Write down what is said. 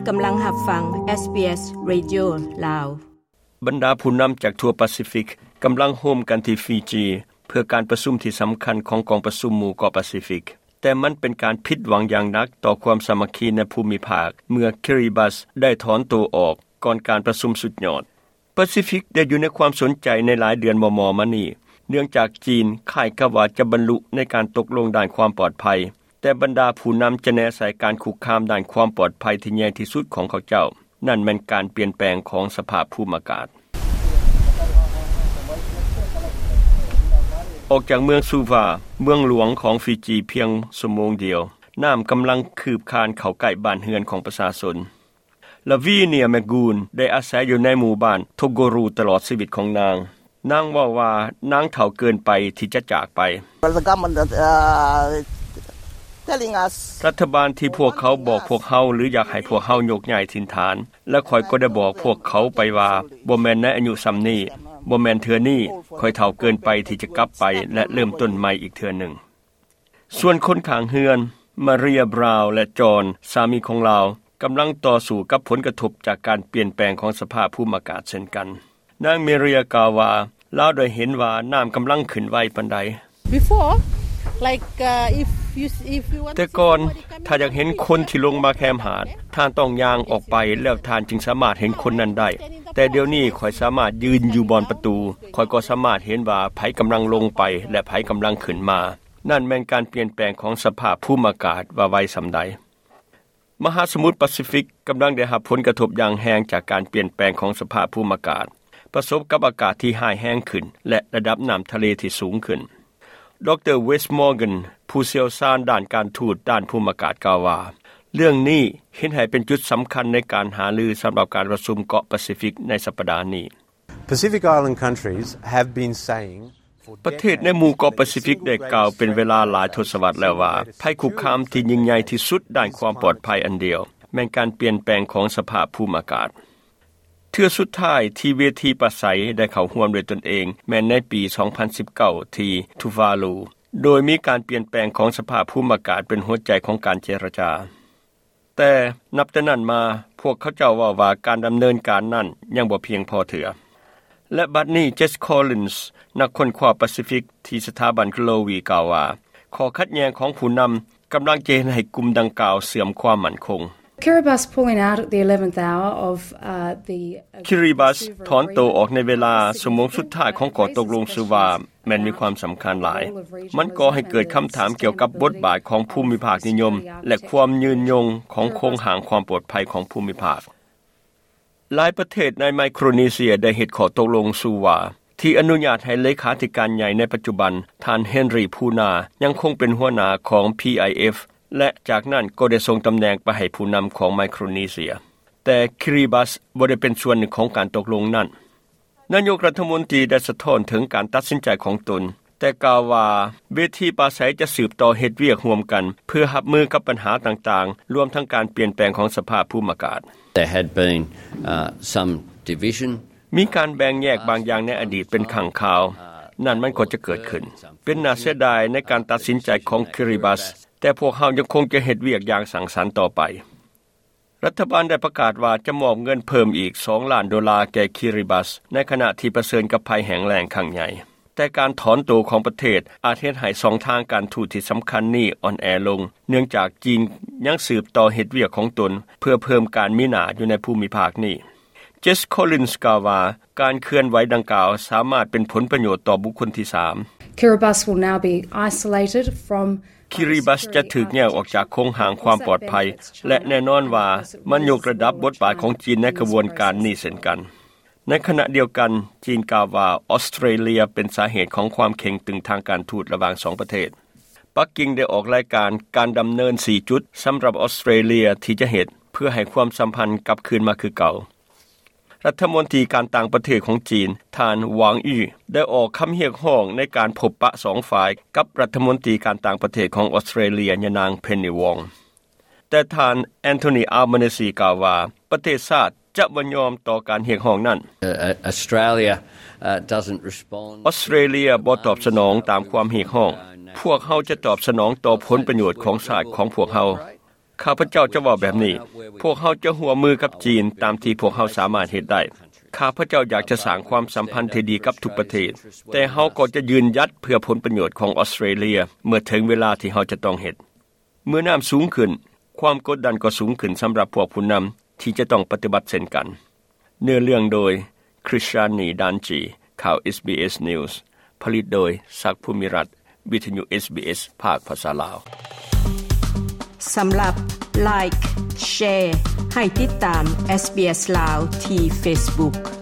ກຳລັງຮັບຟັງ SBS Radio ລາວ. ບັນດາຜູ້ນຳຈາກທົ່ວປາຊີຟິກກຳລັງໂຮມກັນທີ່ຟີຈີ ເພື່ອການປະຊຸມທີ່ສຳຄັນຂອງກອງປະຊຸມໝູ່ເກາະປາຊີຟິກ, ແຕ່ມັນເປັນການຜິດຫວັງຢ່າງໜັກຕໍ່ຄວາມສາມັກຄີໃນພູມິພາກ ເມື່ອຄິຣິບັດໄດ້ຖອນໂຕອອກກ່ອນການປະຊຸມສຸດຍອດ. ປາຊີຟິກໄດ້ຢູ່ໃນຄວາມສົນໃຈໃນຫຼາຍເດືອນມໍ່ໆມານີ້ ເນື່ອງຈາກຈີນຄ້າຍກັບວ່າຈະບັນລຸໃນການຕົກລົງດ້ານຄວາມປອດໄພ, ແຕ່ບັນດາຜູ້ນຳຈະແນໃສ່ການຄຸກຄາມດ້ານຄວາມປອດໄພທີ່ໃຫຍ່ທີ່ສຸດຂອງເຂົາເຈົ້າ, ນັ້ນແມ່ນການປ່ຽນແປງຂອງສະພາບພູມອາກາດ. ອອກຈາກເມືອງຊູວາ, ເມືອງຫຼວງຂອງຟີຈີ, ພຽງຊົ່ວໂມງດຽວ, ນ້ຳກຳລັງຄືບຄານເຂົ້າໃກ້ບ້ານເຮືອນຂອງປະຊາຊົນ. ລາວີເນຍ ແມກກູນ ໄດ້ອາໄສຢູ່ໃນໝູ່ບ້ານໂທໂກຣູຕະຫຼອດຊີວິດຂອງນາງ. ນາງເວົ້າວ່ານາງເຖົ້າເກີນໄປທີ່ຈະຈາກໄປ. Well, the government, uh, telling us ລັດຖະບານທີ່ພວກເຂົາບອກພວກເຮົາ ຫຼື ຢາກໃຫ້ພວກເຮົາຍົກຍ້າຍຖິ່ນຖານ, ແລະ ຂ້ອຍກໍໄດ້ບອກພວກເຂົາໄປວ່າ ບໍ່ແມ່ນໃນອາຍຸສ່ຳນີ້, ບໍ່ແມ່ນເທື່ອນີ້, ຂ້ອຍເຖົ້າເກີນໄປທີ່ຈະກັບໄປ ແລະ ເລີ່ມຕົ້ນໃໝ່ອີກເທື່ອໜຶ່ງ. ສ່ວນຄົນຂ້າງເຮືອນ, ມາເຣຍ ບຣາວ ແລະ ຈອນ ສາມີຂອງລາວ, ກຳລັງຕໍ່ສູ້ກັບຜົນກະທົບຈາກການປ່ຽນແປງຂອງສະພາບພູມອາກາດເຊັ່ນກັນ. ນາງ ເມເຣຍ ກ່າວວ່າ ລາວໄດ້ເຫັນວ່ານ້ຳກຳລັງຂຶ້ນໄວປານໃດ. Before, like, uh, if you, if you want to see somebody coming, ແຕ່ກ່ອນ, ຖ້າຢາກເຫັນຄົນທີ່ລົງມາແຄມຫາດ, ທ່ານຕ້ອງຍ່າງອອກໄປ ແລ້ວທ່ານຈຶ່ງສາມາດເຫັນຄົນນັ້ນໄດ້. ແຕ່ດຽວນີ້ຂ້ອຍສາມາດຢືນຢູ່ບ່ອນປະຕູ, ຂ້ອຍກໍສາມາດເຫັນວ່າໃຜກຳລັງລົງໄປ ແລະ ໃຜກຳລັງຂຶ້ນມາ. ນັ້ນແມ່ນການປ່ຽນແປງຂອງສະພາບພູມອາກາດວ່າໄວສ່ຳໃດ. ມະຫາສະໝຸດປາຊີຟິກກຳລັງໄດ້ຮັບຜົນກະທົບຢ່າງແຮງຈາກການປ່ຽນແປງຂອງສະພາບພູມອາກາດ, ປະສົບກັບອາກາດທີ່ຮ້າຍແຮງຂຶ້ນ ແລະ ລະດັບນ້ຳທະເລທີ່ສູງຂຶ້ນ. ດຣ. ເວສ ມໍເກັນ ຜູ້ຊ່ຽວຊານດ້ານການທູດດ້ານພູມອາກາດ ກ່າວວ່າ ເລື່ອງນີ້ເຮັດໃຫ້ເປັນຈຸດສຳຄັນໃນການຫາລືສຳລັບການປະຊຸມເກາະປາຊີຟິກໃນສັບປະດານີ້. Pacific Island countries have been saying ປະເທດໃນໝູ່ເກາະປາຊີຟິກໄດ້ກ່າວເປັນເວລາຫຼາຍທົດສະວັດແລ້ວວ່າ ໄພຄຸກຄາມທີ່ຍິ່ງໃຫຍ່ທີ່ສຸດດ້ານຄວາມປອດໄພອັນດຽວ ແມ່ນການປ່ຽນແປງຂອງສະພາບພູມອາກາດ. ເທື່ອສຸດທ້າຍທີ່ເວທີປາໄສໄດ້ເຂົ້າຮ່ວມດ້ວຍຕົນເອງ ແມ່ນໃນປີສອງພັນສິບເກົ້າ ທີ່ທູວາລູ, ໂດຍມີການປ່ຽນແປງຂອງສະພາບພູມອາກາດເປັນຫົວໃຈຂອງການເຈລະຈາ. ແຕ່ນັບແຕ່ນັ້ນມາ, ພວກເຂົາເຈົ້າເວົ້າວ່າການດຳເນີນການນັ້ນຍັງບໍ່ພຽງພໍເທື່ອ. ແລະ ບັດນີ້ Jess Collins ນັກຄົ້ນຄວ້າປາຊີຟິກທີ່ສະຖາບັນ Globee ກ່າວວ່າ ຂໍ້ຂັດແຍ່ງຂອງຜູ້ນຳກຳລັງຈະເຮັດໃຫ້ກຸ່ມດັ່ງກ່າວເສື່ອມຄວາມໝັ້ນຄົງ. Kiribati pulling out at the eleventh hour of, uh, the, uh, Kiribati ຖອນໂຕອອກໃນເວລາຊົ່ວໂມງສຸດທ້າຍຂອງຂໍ້ຕົກລົງ Suva ແມ່ນມີຄວາມສຳຄັນຫຼາຍ. ມັນກໍ່ໃຫ້ເກີດຄຳຖາມກ່ຽວກັບບົດບາດຂອງພູມິພາກນິຍົມ ແລະ ຄວາມຍືນຍົງຂອງໂຄງຮ່າງຄວາມປອດໄພຂອງພູມິພາກ. ຫຼາຍປະເທດໃນໄມໂຄຣເນເຊຍໄດ້ເຮັດຂໍ້ຕົກລົງ Suva ທີ່ອະນຸຍາດໃຫ້ເລຂາທິການໃຫຍ່ໃນປັດຈຸບັນ ທ່ານ Henry Puna ຍັງຄົງເປັນຫົວໜ້າຂອງ PIF ແລະ ຈາກນັ້ນກໍໄດ້ສົ່ງຕຳແໜ່ງໄປໃຫ້ຜູ້ນຳຂອງໄມໂຄຣເນເຊຍ. ແຕ່ Kiribati ບໍ່ໄດ້ເປັນສ່ວນໜຶ່ງຂອງການຕົກລົງນັ້ນ. ນາຍົກລັດຖະມົນຕີໄດ້ສະທ້ອນເຖິງການຕັດສິນໃຈຂອງຕົນ, ແຕ່ກ່າວວ່າເວທີປາໄສຈະສືບຕໍ່ເຮັດວຽກຮ່ວມກັນ ເພື່ອຮັບມືກັບບັນຫາຕ່າງໆ, ລວມທັງການປ່ຽນແປງຂອງສະພາບພູມອາກາດ. There had been, uh, some division. ມີການແບ່ງແຍກບາງຢ່າງໃນອະດີດເປັນຄັ້ງຄາວ. ນັ້ນມັນກໍຈະເກີດຂຶ້ນ. ເປັນໜ້າເສຍດາຍໃນການຕັດສິນໃຈຂອງ Kiribati, ແຕ່ພວກເຮົາຍັງຄົງຈະເຮັດວຽກຢ່າງສ້າງສັນຕໍ່ໄປ. ລັດຖະບານໄດ້ປະກາດວ່າຈະມອບເງິນເພີ່ມອີກສອງລ້ານໂດລາແກ່ Kiribati ໃນຂະນະທີ່ປະເຊີນກັບໄພແຫ້ງແລ້ງຄັ້ງໃຫຍ່. ແຕ່ການຖອນໂຕຂອງປະເທດອາດເຮັດໃຫ້ຊ່ອງທາງການທູດທີ່ສຳຄັນນີ້ອ່ອນແອລົງ, ເນື່ອງຈາກຈີນຍັງສືບຕໍ່ເຮັດວຽກຂອງຕົນເພື່ອເພີ່ມການມີໜ້າຢູ່ໃນພູມິພາກນີ້. Jess Collins ກ່າວວ່າ ການເຄື່ອນໄຫວດັ່ງກ່າວສາມາດເປັນຜົນປະໂຫຍດຕໍ່ບຸກຄົນທີສາມ. Kiribati will now be isolated from Kiribati ຈະຖືກແຍກອອກຈາກໂຄງຮ່າງຄວາມປອດໄພ ແລະ ແນ່ນອນວ່າມັນຍົກລະດັບບົດບາດຂອງຈີນໃນຂະບວນການນີ້ເຊັ່ນກັນ. ໃນຂະນະດຽວກັນ, ຈີນກ່າວວ່າອອສເຕຣເລຍເປັນສາເຫດຂອງຄວາມເຄັ່ງຕຶງທາງການທູດລະຫວ່າງສອງປະເທດ. ປັກກິ່ງໄດ້ອອກລາຍການການດຳເນີນສີ່ຈຸດສຳລັບອອສເຕຣເລຍທີ່ຈະເຮັດເພື່ອໃຫ້ຄວາມສຳພັນກັບຄືນມາຄືເກົ່າ. ລັດຖະມົນຕີການຕ່າງປະເທດຂອງຈີນ ທ່ານ ຫວາງ ອີ ໄດ້ອອກຄຳຮຽກຮ້ອງໃນການພົບປະສອງຝ່າຍກັບລັດຖະມົນຕີການຕ່າງປະເທດຂອງອອສເຕຣເລຍ ຍານາງ ເພັນນີ ວອງ. ແຕ່ທ່ານ ແອນໂທນີ ອາລບານີ ກ່າວວ່າ ປະເທດຊາດຈະບໍ່ຍອມຕໍ່ການຮຽກຮ້ອງນັ້ນ. Uh, uh, Australia, uh, doesn't respond. ອອສເຕຣເລຍບໍ່ຕອບສະໜອງຕາມຄວາມຮຽກຮ້ອງ. ພວກເຮົາຈະຕອບສະໜອງຕໍ່ຜົນປະໂຫຍດຂອງຊາດຂອງພວກເຮົາ. ຂ້າພະເຈົ້າຈະເວົ້າແບບນີ້: ພວກເຮົາຈະຮ່ວມມືກັບຈີນຕາມທີ່ພວກເຮົາສາມາດເຮັດໄດ້. ຂ້າພະເຈົ້າຢາກຈະສ້າງຄວາມສຳພັນທີ່ດີກັບທຸກປະເທດ, ແຕ່ເຮົາກໍຈະຢືນຢັດເພື່ອຜົນປະໂຫຍດຂອງອອສເຕຣເລັຽ ເມື່ອເຖິງເວລາທີ່ເຮົາຈະຕ້ອງເຮັດ. ເມື່ອນ້ຳສູງຂຶ້ນ, ຄວາມກົດດັນກໍສູງຂຶ້ນສຳລັບພວກຜູ້ນຳທີ່ຈະຕ້ອງປະຕິບັດເຊັ່ນກັນ. ເນື້ອເລື່ອງໂດຍ Krishnani Danji. ຂ່າວ SBS News ຜະລິດໂດຍ ສັກ ພູມິລັດ, ວິທະຍຸ SBS ພາກພາສາລາວ. ສຳລັບ Like, Share ໃຫ້ຕິດຕາມ SBS ລາວທີ່ Facebook.